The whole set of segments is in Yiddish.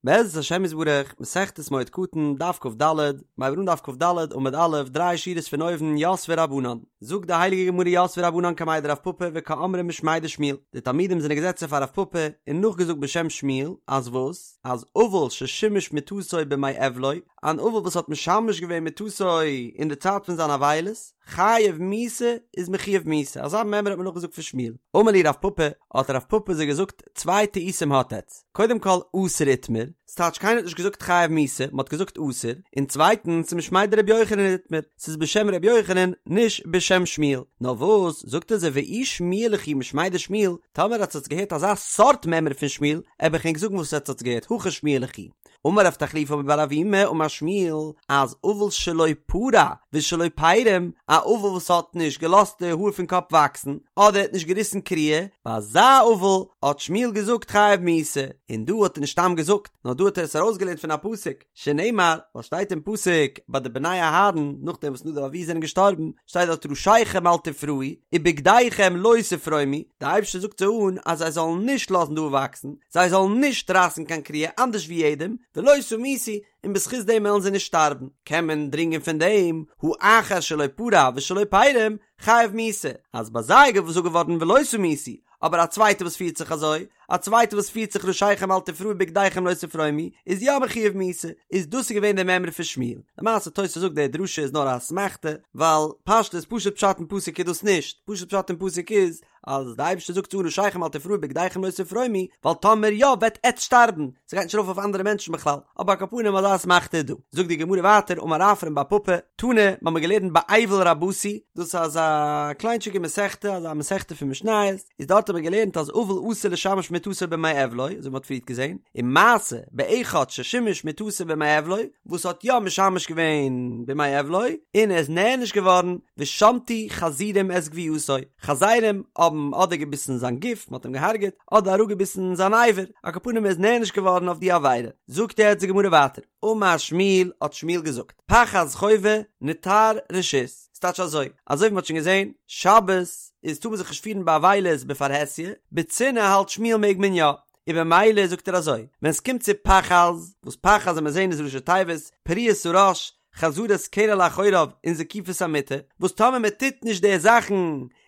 בעזרת השם יתברך, מסכת מועד קטן, דף כ"ד, מיר הייבן אן דף כ"ד, עמוד א', דריי שורות פון אויבן, יתבי רבנן. זאגט די הייליגע גמרא יתבי רבנן קמיה דרב פפא וקאמרי משמיה דשמואל. די תלמידים זענען געזעצן פאר רב פפא און נאכגעזאגט בשם שמואל, אז וואס? אז אבל ששימש מטתו בימי אבלו, אן אבל וואס האט משמש געווען מטתו אין די צייט פון זיין אבילות, חייב מיתה איז מחויב מיתה, אזא מימרא האט מען נאכגעזאגט פון שמואל. אמר להו רב פפא, האט רב פפא זיי געזאגט, צוויי טעותים האט עטץ, קודם כל אסור איתמר, ס'טייטש קיינער האט נישט געזאגט חייב מיתה, מ'האט געזאגט אסור, און צווייטנס משמיה דרבי יוחנן איתמר, ס'איז בשם רבי יוחנן, נישט בשם שמואל. נאר וואס, זאגט ער זיי ואי שמיע לכו משמיה דשמואל, טאמער האט עטץ געהערט אזא סארט מימרא פון שמואל, עב איך ענק זאגן וואס עטץ האטס געהערט, הכי שמיע לכו. אמר רב תחליפא בר אבימי אמר שמואל אז אבל שלא פרע ושלא פרים, א אבל וואס האט נישט געלאזט די האר פון קאפ וואקסן, אדער האט נישט געריסן קריעה, ביי אזא אבל האט שמואל געזאגט חייב מיתה, און דא האט ער נישט סתם געזאגט, נאר דא האט ער עס ארויסגעלערנט פון א פסוק, שנאמר, ווייל שטייט אין פסוק ביי די בני אהרן נאכדעם וואס נדב ואביהוא זענען געשטארבן, שטייט דארט ראשיכם אל תפרעו ובגדיכם לא תפרומו, די אייבערשטער זאגט זיי אן אז זיי זאלן נישט לאזן די האר וואקסן, זיי זאלן נישט רייסן קיין קריעה אנדערש ווי יעדעם, ולא תמותו, און בזכות דעם וועלן זיי נישט שטארבן. קען מען דרינגען פון דעם, הא אחר שלא פרע ושלא פרם, חייב מיתה, אז ביי זיי איז געזאגט געווארן ולא תמותו, אבער א צווייטער וואס פירט זיך אזוי, א צווייטער וואס פירט זיך ראשיכם אל תפרעו ובגדיכם לא תפרומו, איז יא מחויב מיתה, איז דאס איז געווען די מימרא פון שמואל. למעשה תוס' זאגט די דרשה איז נאר א אסמכתא, ווייל פשטות פשוט פשט אין פסוק איז דאס נישט, פשוט פשט אין פסוק איז אז די אייבערשטער זאגט צו ראשיכם אל תפרעו ובגדיכם לא תפרומו, ווייל טאמער יא וועט עטץ שטארבן, ס'גייט נישט ארויף אויף אנדערע מענטשן בכלל, אבער על כל פנים אזא אסמכתא איז דא. זאגט די גמרא ווייטער אמר רפרם בר פפא, תנא, מ'האמיר געלערנט באבל רבתי, דאס איז אזא קליינטשיגע מסכתא, אזא מסכתא פון משניות, איז דארט האט מען געלערנט אז אבל אסור לשמש מטתו בימי אבלו, אזוי ווי מ'האט פריערט געזען, ומעשה באחד ששימש מטתו בימי אבלו, וואס האט יא משמש געווען בימי אבלו, און ער איז נענש געווארן, ושמטו חזירים את גוויעתו, חזירים האבן אדער געביסן זיין גוף, מ'האט אים געהארגעט, אדער אראפגעביסן זיין אבר, על כל פנים ער איז נענש געווארן אויף די עבירה. זאגט יעצט די גמרא ווייטער, אמר שמואל האט שמואל געזאגט, פחז חובה, נתר רשות, ס'טייטש אזוי, אזוי ווי מ'האט שוין געזען, שבת איז טאר מען זיך נישט פירן באבילות בפרהסיא, בצנעה האלט שמואל מעג מען יא, און במילא זאגט ער אזוי, ווען ס'קומט צו פחז, וואס פחז ווי מיר זעהן איז ראשי תיבות, פריעת הראש, חזרת קרע לאחוריו און זקיפת המיטה, וואס טאמער מען טוט נישט די זאכן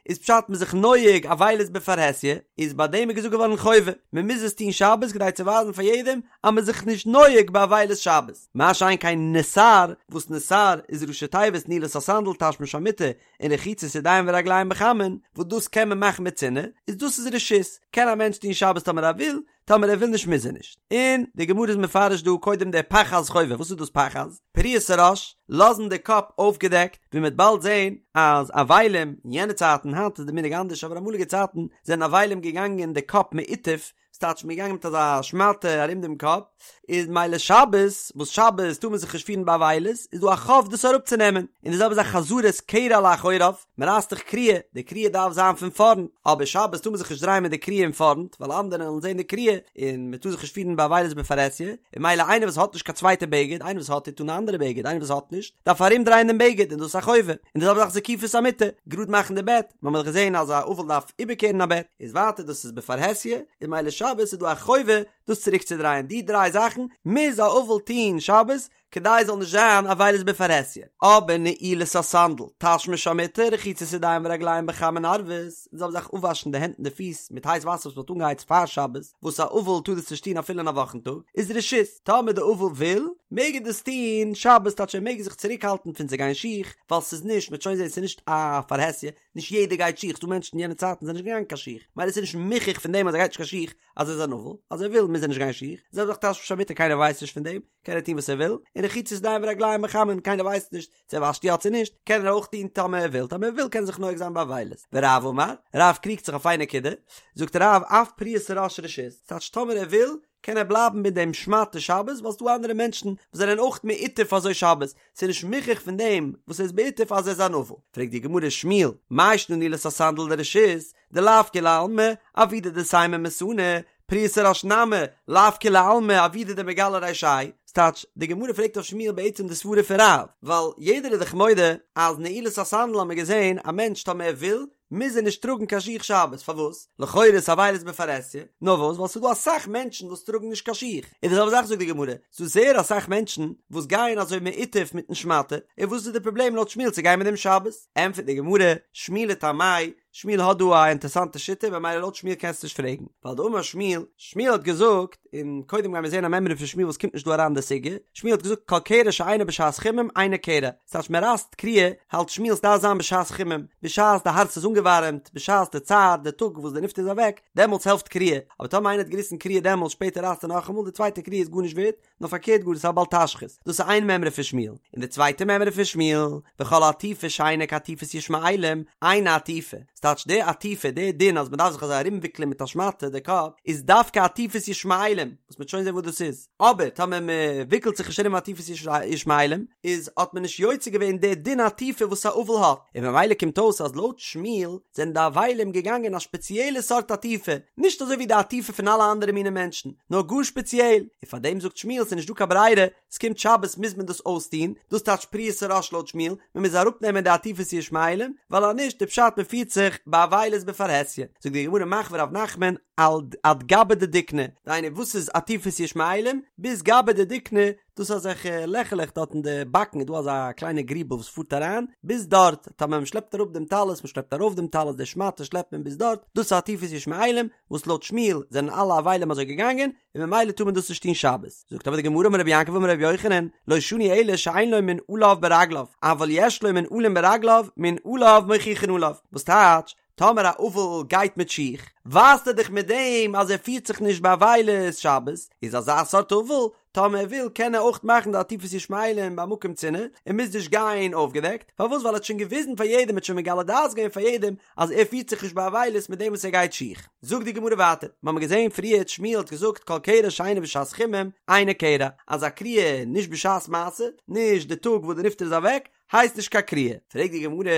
איז פשט מ'איז זיך נוהג אבילות בפרהסיא, איז ביי דעם איז געזאגט געווארן חובה, מען מוז עס טון שבת כדי צו ווייזן פאר יעדעם אז מ'איז זיך נישט נוהג באבילות שבת, מה שאין כן נתר, וואס נתר איז ראשי תיבות נעילת הסנדל תשמיש המיטה און רחיצת ידיים ורגליים בחמין, וואס דאס קען מען מאכן בצנעה, איז דאס איז רשות, קען א מענטש טון שבת טאמער ער וויל, טאמער ער וויל נישט מוז ער נישט. און די גמרא איז מפרש דא קודם די פחז חובה, וואס איז דאס פחז? פריעת הראש, לאזן די קאפ אויפגעדעקט, ווי מ'וועט באלד זען אז אבלים אין יענע צייטן, היינט איז די מנהג אנדערש אבער אמאליגע צייטן זענען אבלים געגאנגען די קאפ מעוטף, ס'טייטש מ'איז געגאנגען מיט אזא שמאטע ארום דעם קאפ, איז מילא שבת, וואס שבת טאר מען זיך נישט פירן באבילות, איז דא א חוב דאס אראפצונעמען, און די זעלבע זאך חזרת קרע לאחוריו, מען רייסט דאך קריעה, די קריעה דארף זיין פון פארנט, אבער שבת טאר מען זיך נישט דרייען מיט די קריעה אין פארנט, ווייל אנדערע וועלן זען די קריעה, און מען טאר זיך נישט פירן באבילות בפרהסיא, און מילא איינער וואס האט נישט קיין צווייטע בגד, איינער וואס האט טוט אן א אנדערע בגד, איינער וואס האט נישט, דארף ארום דרייען דעם בגד, און דאס איז א חובה, און די זעלבע זאך זקיפת המיטה, גראד מאכן די בעט, מיר האבן דאך געזען אז א אבל דארף איבערקערן א בעט, איז ווייטער דאס איז בפרהסיא, און מילא שבת איז דא א חובה דאס צוריק צו דרייען, די דריי זאכן מוז א אבל טון שבת, כדי עס זאל נישט זיין אבילות בפרהסיא, אבער נעילת הסנדל, תשמיש המיטה, רחיצת ידיים ורגליים בחמין ערבית, און זעלבע זאך אפוואשן די הענט און די פיס מיט הייס וואסער וואס מען האט אנגעהייצט פאר שבת, וואס א אבל טאר דאס נישט טון אפילו אין א וואכן טאג, איז רשות, טאמער די אבל וויל, מעג ער דאס טון שבת, טייטש ער מעג זיך צוריקהאלטן פון צו גיין שיך, ווייל ס'איז נישט, מ'וועט שוין זען ס'איז נישט א פרהסיא, נישט יעדער גייט שיך, ס'דא מענטשן אין יענע צייטן זענען נישט געגאנגען קיין שיך, מילא ס'איז נישט מוכח פון דעם אז ער גייט נישט קיין שיך אז ער איז אן אבל, אז ער וויל מוז ער נישט גיין שיך, זעלבע זאך תשמיש המיטה קיינער ווייסט נישט פון דעם, קען ער טון וואס ער וויל, און רחיצת ידיים ורגליים בחמין קיינער ווייסט נישט צו ער וואשט יא צו נישט, קען ער אויך טון טאמער ער וויל, טאמער ער וויל קען ער זיך נוהג זיין באבילות. ורב אמר, רב קריגט זיך אויף איין נקודה, זאגט רב אף פריעת הראש רשות, ס'טייטש טאמער ער וויל קען ער בלייבן מיט דעם שמאטע שבת ווייל ס'דא אנדערע מענטשן וואס זענען אויך מעוטף אזוי שבת, ס'איז נישט מוכח פון דעם וואס ער איז מעוטף אז ער איז אן אבל. פרעגט די גמרא שמואל, מאי שנא נעילת הסנדל דרשות, דלאו כולי עלמא, עבידא דסיימא מסאנא. פריעת הראש נמי לאו כולי עלמא עבידא דמגלי רישייהו, ס'טייטש, די גמרא פרעגט אויף שמואל בעצם די סברה פון רב, ווייל יעדער איז דאך מודה אז נעילת הסנדל האט מען געזען א מענטש טאמער ער וויל מוז ער נישט טראגן קיין שיך שבת, פארוואס? לכאורה איז אבילות בפרהסיא, נאר וואס ווייל ס'איז דא אסאך מענטשן וואס טראגן נישט קיין שיך, און די זעלבע זאך זאגט די גמרא, ס'איז דא זייער אסאך מענטשן וואס גייען אזוי מעוטף מיטן שמאטע, און וואס איז די פראבלעם לויט שמואל צו גיין מיט דעם שבת? ענטפערט די גמרא, שמואל לטעמיה, שמואל האט דא א אינטערסאנטע שיטה במילא לויט שמואל קענסטו נישט פרעגן, ווייל דאמר שמואל, שמואל האט געזאגט, און קודם גיימיר זען א מימרא פון שמואל וואס קומט נישט דא אריין אין די סוגיא, שמואל האט געזאגט כל קרע שאינו בשעת חימום אינו קרע, ס'טייטש מען רייסט קריעה, האלט שמואל ס'דארף זיין בשעת חימום, בשעת די הארץ איז אנגעווארעמט, בשעת די צער, די טאג וואס די נפטר איז אוועק, דעמאלטס העלפט קריעה, אבער טאמער איינער האט געריסן קריעה דעמאלטס שפעטער רייסט ער נאכאמאל, די צווייטע קריעה איז גארנישט ווערט, נאר פארקערט גאר עס איז א בל תשחית, דאס איז איין מימרא פון שמואל, און די צווייטע מימרא פון שמואל, וכל עטיפה שאינה כעטיפת ישמעאלים, אינה עטיפה, ס'טייטש די עטיפה, די דין אז מ'דארף זיך אזוי ארומוויקלען מיט א שמאטע די קאפ, איז דווקא עטיפת ישמעאלים, וואס מ'וועט שוין זען וואס דאס איז, אבער טאמער מ'וויקלט זיך נישט ארום עטיפת ישמעאלים, איז האט מען נישט יוצא געווען די דין עטיפה וואס א אבל האט, און ממילא קומט אויס אז לויט שמואל זענען די אבלים געגאנגען א שפעציעלע סארט עטיפה, נישט אזוי ווי די עטיפה פון אלע אנדערע מיני מענטשן, נאר גאר שפעציעל, און פאר דעם זאגט שמואל ס'איז נישט דא קיין ברירה, ס'קומט שבת מוז מען דאס אויסטון, דאס טייטש פריעת הראש לויט שמואל, מען מוז אראפנעמען די עטיפת ישמעאלים, ווייל אז נישט איז פשט מען פירט זיך באבילות בפרהסיא, זאגט די גמרא מחוי רב נחמן על עד גבי דדיקנא, דהיינו וואס איז עטיפת ישמעאלים, ביז גבי דדיקנא, דאס איז אזעלכע לעכעלעך דארט אין די באקן איז דא אזא קליינע גריבל וואס פארט אריין ביז דארט, טאמער מען שלעפט אראפ דעם טלית, מען שלעפט ארויף דעם טלית, די שמאטע שלעפט מען ביז דארט, דאס איז עטיפת ישמעאלים, וואס לויט שמואל זענען אלע אבלים אזוי געגאנגען, און ממילא טאר מען דאס נישט טון שבת. זאגט אבער די גמרא אמר רבי יעקב אמר רבי יוחנן, לא שנו אלא שאין לו מנעליו ברגליו, אבל יש לו מנעלים ברגליו, מנעליו מוכיחין עליו. וואס טייטש, טאמער א אבל גייט מיט שיך, ווייזט ער דאך מיט דעם אז ער פירט זיך נישט באבילות שבת, איז אזא סארט אבל, טאמער ער וויל קען ער אויך מאכן די עטיפת ישמעאלים במקום צנעה, און מוז נישט גיין אויפגעדעקט, פארוואס ווייל ער האט שוין געוויזן פאר יעדעם ער האט שוין מגלה דעת געווען פאר יעדעם אז ער פירט זיך נישט באבילות מיט דעם וואס ער גייט שיך. זאגט די גמרא ווייטער, מיר האבן געזען פריערט שמואל האט געזאגט כל קרע שאינו בשעת חימום אינו קרע, אז א קריעה נישט בשעת מעשה, נישט די טאג וואס די נפטר איז אוועק, הייסט נישט קיין קריעה. פרעגט די גמרא,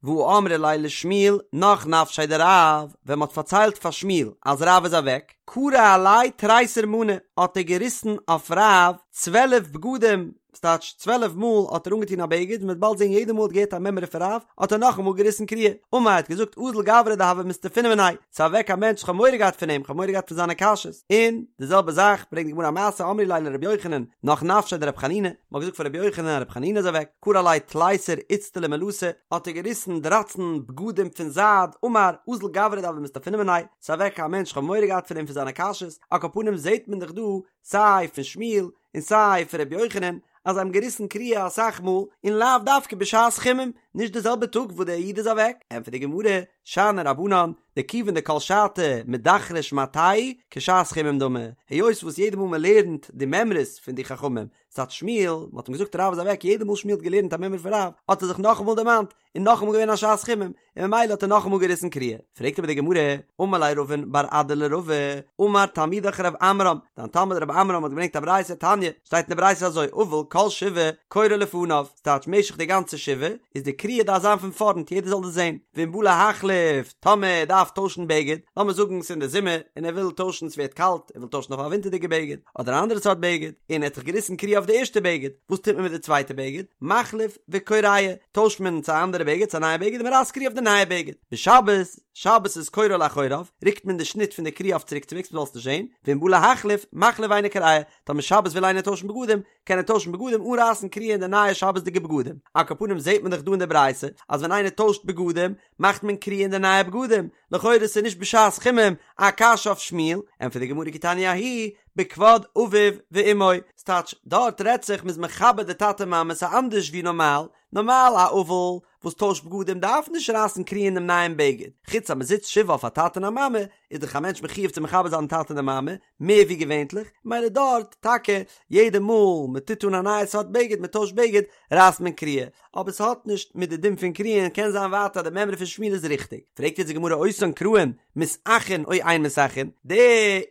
והא אמרי ליה לשמואל נח נפשיה דרב, ווען מ'האט פארציילט פאר שמואל אז רב איז אוועק, קרע עליה תריסר מאני, האט ער געריסן אויף רב צוועלף בגדים, ס'טייטש צוועלף מאל האט ער אנגעטון א בגד, און מ'וועט באלד זען יעדע מאל האט געהערט א מימרא פון רב, האט ער נאכאמאל געריסן קריעה. אמר האט געזאגט אזל גברא דהוה מסתפינא מיניה, ס'איז אוועק א מענטש כ'האב מורא געהאט פון אים, כ'האב מורא געהאט פון זיינע קשיות. און די זעלבע זאך ברענגט די גמרא א מעשה אמרי ליה לרבי יוחנן נח נפשיה דרבי חנינא, מ'האט געזאגט פאר רבי יוחנן אז רבי חנינא איז אוועק, קרע עליה תליסר איצטלי מלתא, האט ער געריסן דרייצן בגדים פון זייד, אמר, אזל גברא דהוה מסתפינא מיניה, ס'איז אוועק א מענטש כ'האב מורא געהאט פון אים פון זיינע קשיות, על כל פנים זעט מען דאך דא סיי פון שמואל און סיי פון רבי יוחנן אז זיי האבן געריסן קריעה אסאך מאל און לאו דווקא בשעת חימום, נישט די זעלבע טאג וואס דער איד איז אוועק, ענטפערט די גמרא, שאני רבנן, דכיון דכל שעתא מדכרי שמעתייהו כשעת חימום דמי, היות וואס יעדע מאל מען לערנט די מימרות פון די חכמים, ס'טייטש שמואל, מען האט אים געזאגט רב איז אוועק, יעדע מאל שמואל האט געלערנט א מימרא פון רב, האט ער זיך נאכאמאל דערמאנט, און נאכאמאל געווען א שעת חימום, און ממילא האט ער נאכאמאל געריסן קריעה. פרעגט אבער די גמרא, אמר ליה רבין בר אדא לרבא, אמר תלמידך רב עמרם, דיין תלמיד רב עמרם האט געברענגט א ברייתא תניא, שטייט אין די ברייתא אזוי, אבל כל שבעה קורע לפניו, ס'טייטש משך די גאנצע שבעה, איז די קריעה דארף זיין פון פארנט יעדער זאל דאס זען, ואם בא להחליף, טאמער ער דארף טוישן בגד, לאמיר זאגן ס'איז אין די זומער און ער וויל טוישן ס'ווערט קאלט, ער וויל טוישן אויף א ווינטערדיגע בגד, אדער א אנדערע סארט בגד, און ער האט זיך געריסן קריעה אויף די ערשטע בגד, וואס טוט מען מיט די צווייטע בגד? מחליף וקורע, טוישט מען צו א אנדערע בגד, צו א נייע בגד, און מען רייסט קריעה אויף די נייע בגד. בשבת, שבת איז קורע לאחוריו, רוקט מען די שניט פון די קריעה אויף צוריקצווועגס מען זאל עס נישט זען, ואם בא להחליף, מחליף ואינו קורע, טאמער שבת וויל איינער טוישן בגדים, קען ער טוישן בגדים אן רייסן קריעה אין די נייע שבת'דיגע בגדים. על כל פנים זעט מען דאך דא אין די ברייתא אז ווען איינער טוישט בגדים מאכט מען קריעה אין די נייע בגדים, לכאורה איז נישט בשעת חימום א קשיא אויף שמואל, ענטפערט די גמרא כי תניא ההיא בכבוד אביו ואמו, ס'טייטש דארט רעדט זיך מ'איז מכבד די טאטע מאמע ס'איז אנדערש ווי נארמאל, נארמאל א אבל וואס טוישט בגדים דארף נישט רייסן קריעה אין דעם נייעם בגד, חוץ אז מ'זיצט שבעה אויף א טאטע און א מאמע איז דאך א מענטש מחיוב צו מכבד זיין טאטע און די מאמע, מער ווי געווענטליך, מילא דארט טאקע יעדע מאל מען טוט אן א נייע סארט בגד מען טוישט בגד רייסט מען קריעה, אבער ס'האט נישט מיט די דין פון קריעה און קען זיין ווייטער אז די מימרא פון שמואל איז ריכטיג. פרעגט יעצט די גמרא אותן קרעים מתאחין או אין מתאחין, די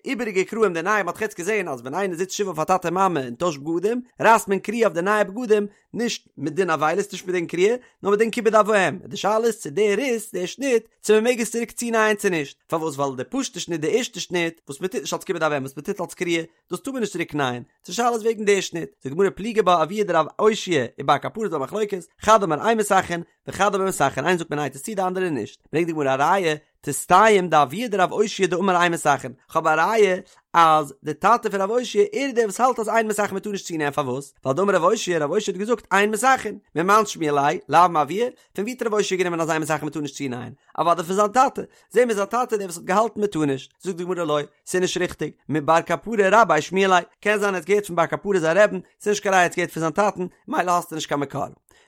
איבעריגע קרעים די נייע מ'האט דאך יעצט געזען אז ווען איינער זיצט שבעה אויף א טאטע מאמע און טוישט בגדים רייסט מען קריעה אויף די נייע בגדים נישט מדין אבילות. נישט מדין קריעה, נאר מדין כיבוד אב ואם, די שאלה איז צו די ריס, די שניט, צו מען מעג עס צוריק צונייען צו נישט, פארוואס ווייל די פשוטע שניט די ערשטע שניט, וואס מען טוט נישט אלס כיבוד אב ואם וואס מען טוט אלס קריעה, דאס טאר מען נישט צוריק נייען, די שאלה איז וועגן די שניט, זאגט די גמרא פליגי בה אבוה דרב אושעיא ובר קפרא ס'דא א מחלוקת, חד אמר אין מסככין, וחד אמר מסככין, איינער זאגט מען נייט עס צו די אנדערע נישט, ברענגט די גמרא א ראיה, תסתיים דאבוה דרב אושעיא דאמר אין מסככין, כ'האב א ראיה אז די טאטע פון רב אושעיא ער איז דער וואס האלט אז אין מסככין מ'טאר נישט צונייען פארוואס? ווייל דאמר רב אושעיא רב אושעיא האט געזאגט אין מסככין, ממאן שמיע ליה, לאו מאבוה, פון ווי האט רב אושעיא גענומען אז אין מסככין מ'טאר נישט צונייען? אוודאי פון זיין טאטע, זעהן מיר זיין טאטע דער וואס האט געהאלטן מ'טאר נישט, זאגט די גמרא לא, ס'איז נישט ריכטיג, מבר קפרא רביה שמיע ליה, קען זיין ער האט געהערט פון בר קפרא זיין רעבן, ס'איז נישט קיין ראיה ער האט געהערט פון זיין טאטן, מילא האסטו נישט קיין מקור.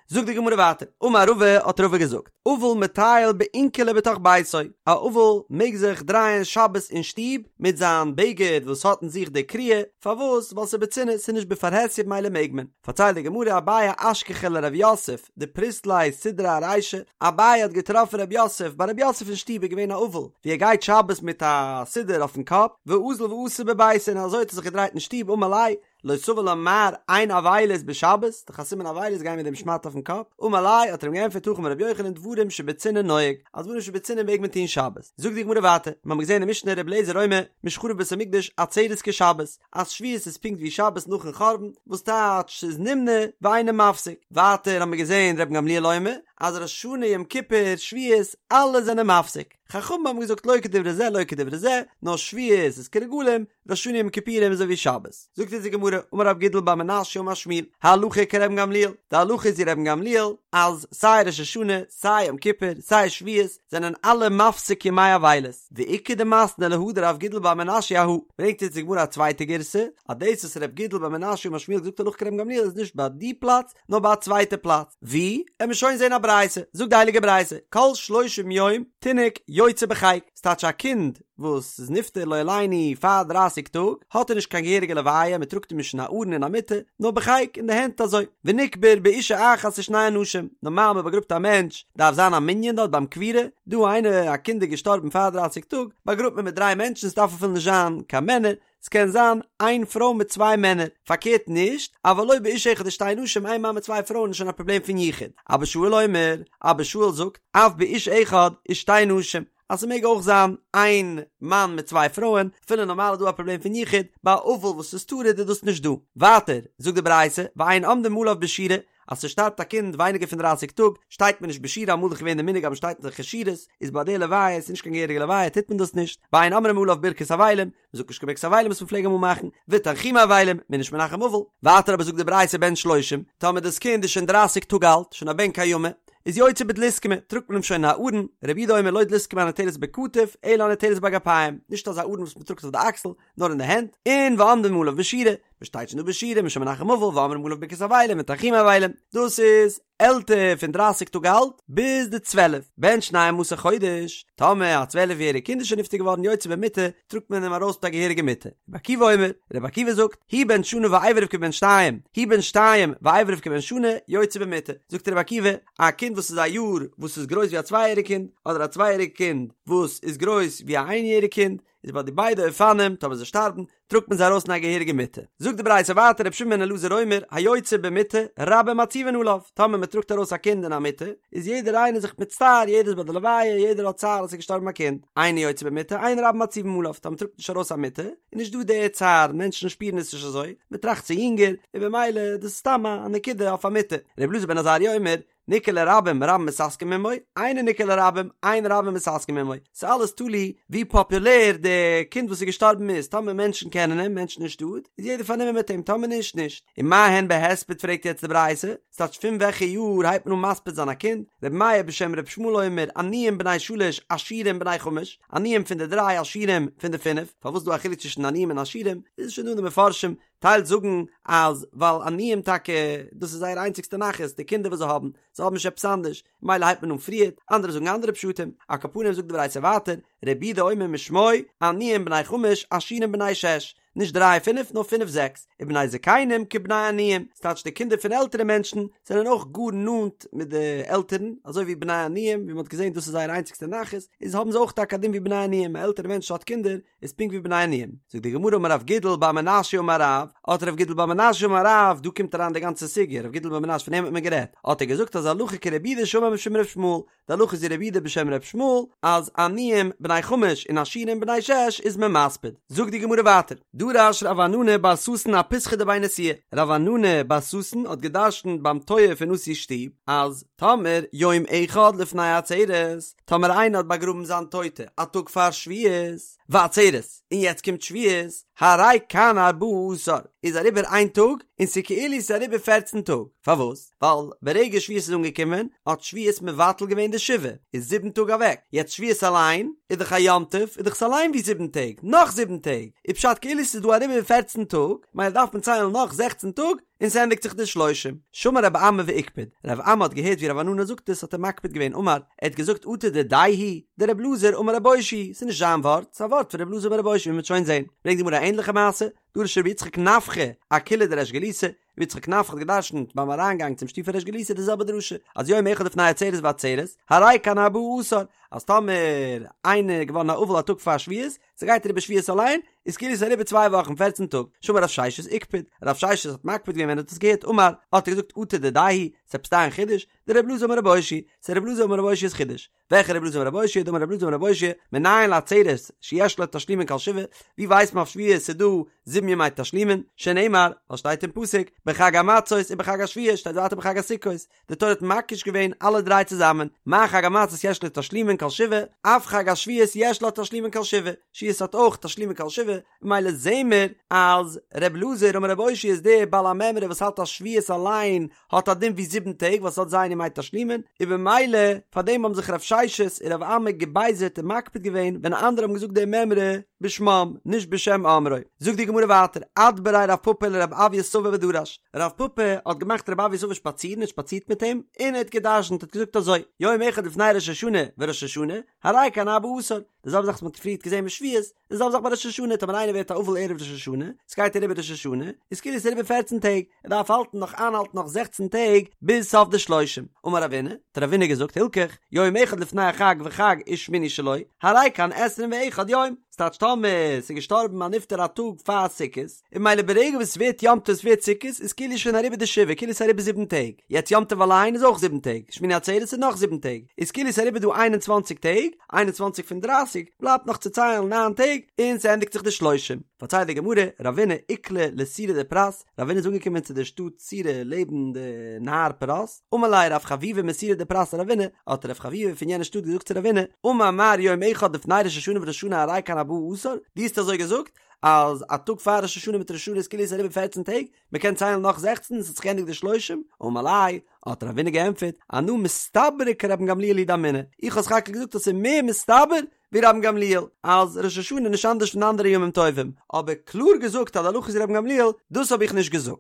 זאגט די גמרא ווייטער, אמר רבא האט רבא געזאגט, אבל מטייל באונקלי בתוך ביתו, א אבל מעג זיך דרייען שבת אין שטוב מיט זיין בגד וואס האט אין זיך די קריעה, פארוואס? ווייל ס'איז בצנעה, ס'איז נישט בפרהסיא במילא מעג מען. פארציילט די גמרא אביי אשכחיה לרב יוסף דפריס ליה סודרא ארישיה, אביי האט געטראפן רב יוסף, ביי רב יוסף אין שטוב איז געווען א אבל ווי ער גייט שבת מיט א סודר אויפן קאפ, ואזיל ואתי בביתיה און אזוי האט ער זיך געדרייט אין שטוב אמר ליה, לא סבר לה מר אין אבילות בשבת, דאך א סימן אבילות גיין מיט דעם שמאטע אויפן קאפ, אמר ליה האט ער אים געענטפערט הכי אמר רבי יוחנן דברים שבצנעה נוהג, אז דברים שבצנעה מעג מען טון שבת. זאגט די גמרא ווייטער, מיר האבן געזען אין משנה רבי אליעזר אומר, משחרב בית המקדש עצרת כשבת, אז שבועות איז פונקט ווי שבת נאכן חורבן, וואס טייטש ס'איז נמנע ואינו מפסיק. ווייטער האבן מיר געזען רבן גמליאל אומר, אז ראש השנה יום כיפור שבועות אלע זענען מפסיק. חכמים האבן געזאגט לא כדברי זה לא כדברי זה, נאר שבועות איז כרגלים, ראש השנה יום כיפורים איז אזוי ווי שבת. זאגט אונז די גמרא, אמר רב גידל בר מנשיא אמר שמואל, הלכה כרבן גמליאל, די הלכה איז ווי רבן גמליאל, אז סיי ראש השנה, סיי יום כיפור, סיי שבועות, זענען אלע מפסיק ימי אבילות, ואיכא דמתני להא דרב גידל בר מנשיא אהא, ברענגט אונז די גמרא א צווייטע גירסא, אז דאס וואס רב גידל בר מנשיא אמר שמואל האט געזאגט הלכה כרבן גמליאל איז נישט ביי די פלאץ, נאר ביי א צווייטע פלאץ. ווי? עמיר שוין זען א ברייתא, זאגט די הייליגע ברייתא, כל שלושים יום תינוק יוצא בחיק, ס'טייטש א קינד וואס איז נפטר לא עלינו פאר דרייסיג טאג, האט ער נישט קיין געהעריגע לוויה, מען טראגט אים נישט אין א ארון אין א מיטה, נאר בחיק אין די הענט אזוי, ונקבר באשה אחת ושני אנשים, נארמאל מען באגראבט א מענטש דארף זיין א מנין דארט ביים קבירה, דא איינער א קינד איז געשטארבן פאר דרייסיג טאג, באגראבט מען מיט דריי מענטשן ס'דארף אפילו נישט זיין קיין מענער, ס'קען זיין איין פרוי מיט צוויי מענער, פארקערט נישט, אבל לא באיש אחד ושתי נשים איין מאן מיט צוויי פרויען איז שוין א פראבלעם פון יחוד. אבא שאול אומר, אבא שאול זאגט, אף באיש אחד ושתי נשים, אז ס'מעג אויך זיין איין מאן מיט צוויי פרויען, אפילו נארמאל איז דא א פראבלעם פון יחוד, ביי א אבל וואס איז טרוד איז דאס נישט דא. ווייטער זאגט די ברייתא, ואין עומדים עליו בשורה, אז ס'שטארבט א קינד ווייניגער פון דרייסיג טאג, שטייט מען נישט בשורה, אמאל איז דאך געווען די מנהג אז מ'שטייט זיך אין שורות, איז ביי די לוויה, ס'איז נישט קיין געהעריגע לוויה, טוט מען דאס נישט, ואין אומרים עליו ברכת אבלים, מ'זאגט נישט קיין ברכת אבלים וואס מ'פלעג אמאל מאכן, ותנחומי אבלים, מ'איז נישט מנחם אבל. ווייטער אבער זאגט די ברייתא בן שלושים, טאמער דאס קינד איז שוין דרייסיג טאג אלט, שוין א בן קיימא, איז יוצא בדלוסקמא, טראגט מען אים שוין אין א ארון, רבי יהודה אומר לא דלוסקמא הניטלת בכתף, אלא הניטלת באגפיים, נישט אזא ארון וואס מ'טראגט אויף די אקסל, נאר אין די הענט, און ועומדים עליו בשורה, מ'שטייט שוין דא בשורה, מ'איז שוין מנחם אבל, ואומרים עליו ברכת אבלים ותנחומי אבלים, דאס איז עלטער פון דרייסיג טאג אלט ביז די צוועלף, בן שנים עשר חודש, טאמער א צוועלף יעריג קינד איז שוין נפטר געווארן יוצא במיטה, טראגט מען אים ארויס מיט א געהעריגע מיטה. רבי עקיבא אומר, רבי עקיבא זאגט, הוא בן שנה ואיבריו כבן שתיים, הוא בן שתיים ואיבריו כבן שנה, יוצא במיטה. זאגט רבי עקיבא, א קינד וואס איז א יאר וואס איז גרויס ווי א צוויי יעריג קינד, אדער א צוויי יעריג קינד וואס איז גרויס ווי א איין יעריג קינד, איז ביי די ביידע אופנים טאמער זיי שטארבן טראגט מען זיי ארויס אין א געהעריגע מיטה. זאגט די ברייתא ווייטער רבי שמעון בן אלעזר אומר היוצא במיטה רבים מצהיבין עליו טאמער מען טראגט ארויס א קינד אין א מיטה איז יעדער איינער זיך מצטער יעדער איז ביי די לוויה יעדער האט צער אז עס איז געשטארבן א קינד אינו יוצא במיטה אין רבים מצהיבין עליו טאמער מען טראגט נישט ארויס א מיטה איז נישט דא די צער מענטשן שפירן עס נישט אזוי מען טראכט ס'איז יונגער און במילא דאס איז סתם א נקודה אויף א מיטה רבי אלעזר בן עזריה אומר ניכר לרבים רבים מתעסקים עמו, אינו ניכר לרבים, אין רבים מתעסקים עמו. ס'איז אלעס תלוי ווי פאפולער די קינד וואס איז געשטארבן איז, טאמער מענטשן קענען אים, מענטשן אין שטאט, איז יעדער פארנומען מיט אים, טאמער נישט, נישט. ומה הן בהספד פרעגט יעצט די ברייתא, ס'טייטש פון וועלכע יאר הייבט מען אן מספיד זיין א קינד? רבי מאיר בשם רבי ישמעאל אומר, עניים בני שלש, עשירים בני חמש, עניים פון די דריי, עשירים פון די פינף, פארוואס איז דא א חילוק צווישן עניים און עשירים? איז שוין דא אין די מפרשים, טייל זאגן אז ווייל עניים טאקע דאס איז זייער איינציגסטע נחת די קינדער וואס זיי האבן, זיי האבן נישט עפעס אנדערש, ממילא הייבט מען אן פריערט, אנדערע זאגן אנדערע פשטים, על כל פנים זאגט די ברייתא ווייטער, רבי יהודה אומר משמו, עניים בני חמש, עשירים בני שש. נישט דריי פינף נאר פינף זעקס, ובני זקנים כבני עניים, ס'טייטש די קינדער פון עלטערע מענטשן זענען אויך גאר נאנט מיט די עלטערן, אזוי ווי בני עניים, ווי מ'האט געזען דאס איז זייער איינציגסטע נחת, איז האבן זיי אויך טאקע א דין ווי בני עניים, א עלטערע מענטש האט קינדער איז פונקט ווי בני עניים. זאגט די גמרא אמר רב גידל בר מנשיא אמר רב, האט רב גידל בר מנשיא אמר רב, דא קומט אריין די גאנצע סוגיא, רב גידל בר מנשיא פון אים האט מען גערעדט, האט ער געזאגט אז הלכה כרבי יהודה שאמר משום ר' ישמעאל, די הלכה איז ווי רבי יהודה בשם ר' ישמעאל, אז עניים בני חמש און עשירים בני שש איז מען מספיד. זאגט די גמרא ווייטער, דרש רב ענני בר ששון אפיתחא דבי נשיאה, רב ענני בר ששון האט געדרשנט ביים טויער פון נשיא'ס שטוב, אז טאמער יום אחד לפני עצרת, טאמער איינער האט באגראבן זיין טויטע א טאג פאר שבועות, ועצרת, און יעצט קומט שבועות, הרי כאן ארבעה עשר, איז אריבער איין טאג, און ס'כאילו ס'איז אריבער פערצן טאג, פארוואס? ווייל ברגע שבועות איז אנגעקומען האט שבועות מבטל געווען די שבעה, איז זיבן טאג אוועק, יעצט שבועות אליין איז דאך א יום טוב, איז דאך עס אליין ווי זיבן טעג, נאך זיבן טעג, איז פשט כאילו ס'איז דא אריבער פערצן טאג, מילא דארף מען ציילן נאך זעכצן טאג, און ס'ענדיגט זיך די שלושים. שמע רב אמי ואיקפד, רב אמי האט געהערט ווי רב ענני זאגט עס האט ער מקפיד געווען אמר, ער האט געזאגט אטו דידיה הוא, דרבי אלעזר אמר רבי אושעיא, ס'איז נישט זיין ווארט, ס'איז א ווארט פון רבי אלעזר אמר רבי אושעיא ווי מ'וועט שוין זען, ברענגט די גמרא א ענדליכע מעשה, דרש רבי יצחק נפחא, אקילעא דריש גלותא, רבי יצחק נפחא האט געדרשנט ביים אריינגאנג צום שטוב פון ריש גלותא די זעלבע דרשה, אז יום אחד לפני עצרת ועצרת, הרי כאן ארבעה עשר, אז טאמער איינער איז געווארן א אבל א טאג פאר שבועות, ס'גייט אריבער שבועות אליין, איז כאילו ס'איז אריבער צוויי וואכן פערצן טאג, שמע רב ששת איקפד, רב ששת האט מקפיד געווען ווען ער האט עס געהערט, אמר, האט ער געזאגט אטו דידיה הוא, ס'עפעס דיין חידוש, דרבי אלעזר אמר רבי אושעיא, ס'איז רבי אלעזר אמר רבי אושעיא'ס חידוש. וועלכע רבי אלעזר אמר רבי אושעיא דאמר רבי אלעזר אמר רבי אושעיא מנין לעצרת שיש לה תשלומין כל שבעה ווי ווייסט מען אויף שבועות ס'איז דא זיבן ימי תשלומין שנאמר ווייל שטייט אין פסוק בחג המצות ובחג השבועות שטייט ווייטער בחג הסוכות די תורה האט מקיש געווען אלע דריי צוזאמען מה חג המצות יש לו תשלומין כל שבעה אף חג השבועות יש לו תשלומין כל שבעה שבועות האט אויך תשלומין כל שבעה ממילא זעהן מיר אז ר' אלעזר אמר רבי אושעיא איז דער בעל המימרא וואס האלט אז שבועות אליין האט א דין ווי זיבן טעג ווייל ס'האט ז' ימי תשלומין, און במילא פאר דעם האבן זיך רב ששת און רב אמי געבייזערט און מקפיד געווען ווען אנדערע האבן געזאגט די מימרא בשמם נישט בשם אומרו. זאגט די גמרא ווייטער, אדבריה רב פפא לרב אויא סבא ודרש, רב פפא האט געמאכט רב אויא סבא שפאצירן און שפאצירט מיט אים, און ער האט געדרשנט האט געזאגט אזוי, יום אחד לפני ראש השנה וראש השנה, הרי כאן ארבעה עשר, די זעלבע זאך וואס מ'האט פריערט געזען מיט שבועות, די זעלבע זאך ביי ראש השנה, טאמער איינער ווערט א אבל ערב ראש השנה, ס'גייט אריבער ראש השנה, איז כאילו ס'איז אריבער פערצן טעג, ער דארף האלטן נאך איינהאלטן נאך זעכצן טעג ביז סוף די שלושים. אמר רבינא, האט רבינא געזאגט, הלכך, יום אחד לפני החג וחג ושמיני שלו, הרי כאן עשרים ואחד יום, ס'טייטש טאמער ס'איז געשטארבן א נפטר א טאג פאר סוכות, און ממילא ברגע וואס ס'ווערט יום טוב ס'ווערט סוכות איז כאילו שוין אריבער די שבעה כאילו ס'איז אריבער זיבן טעג, יעצט יום טוב אליין איז אויך זיבן טעג, שמיני עצרת איז נאך זיבן טעג, איז כאילו ס'איז אריבער דא איין און צוואנציג טעג, איין און צוואנציג פון דרייסיג, בלייבט נאך צו ציילן ניין טעג, און ס'ענדיגט זיך די שלושים. פארציילט די גמרא, רבינא איקלע לסורא דפרת, רבינא איז אנגעקומען צו די שטאט סורא לעבן די נהר פרת, אמר ליה רב חביבא מסורא דפרת לרבינא, האט רב חביבא פון יענע שטאט געזאגט צו רבינא, אמר מר יום אחד לפני ראש השנה וראש השנה הרי כאן ארבעה עשר, דו האסט אזוי געזאגט? אז א טאג פאר ראש השנה מיט ראש השנה איז כאילו עס איז אריבער פערצן טעג, מען קען ציילן נאך זעכצן און עס האט זיך געענדיגט די שלושים, אמר ליה, האט רבינא געענטפערט, אנא מסתברא כרבן גמליאל הוא דאמינא, איך האב סך הכל געזאגט אז עס איז מער מסתבר ווי רבן גמליאל, אז ראש השנה איז נישט אנדערש פון אנדערע ימים טובים, אבער קלאר געזאגט אז די הלכה איז ווי רבן גמליאל, דאס האב איך נישט געזאגט.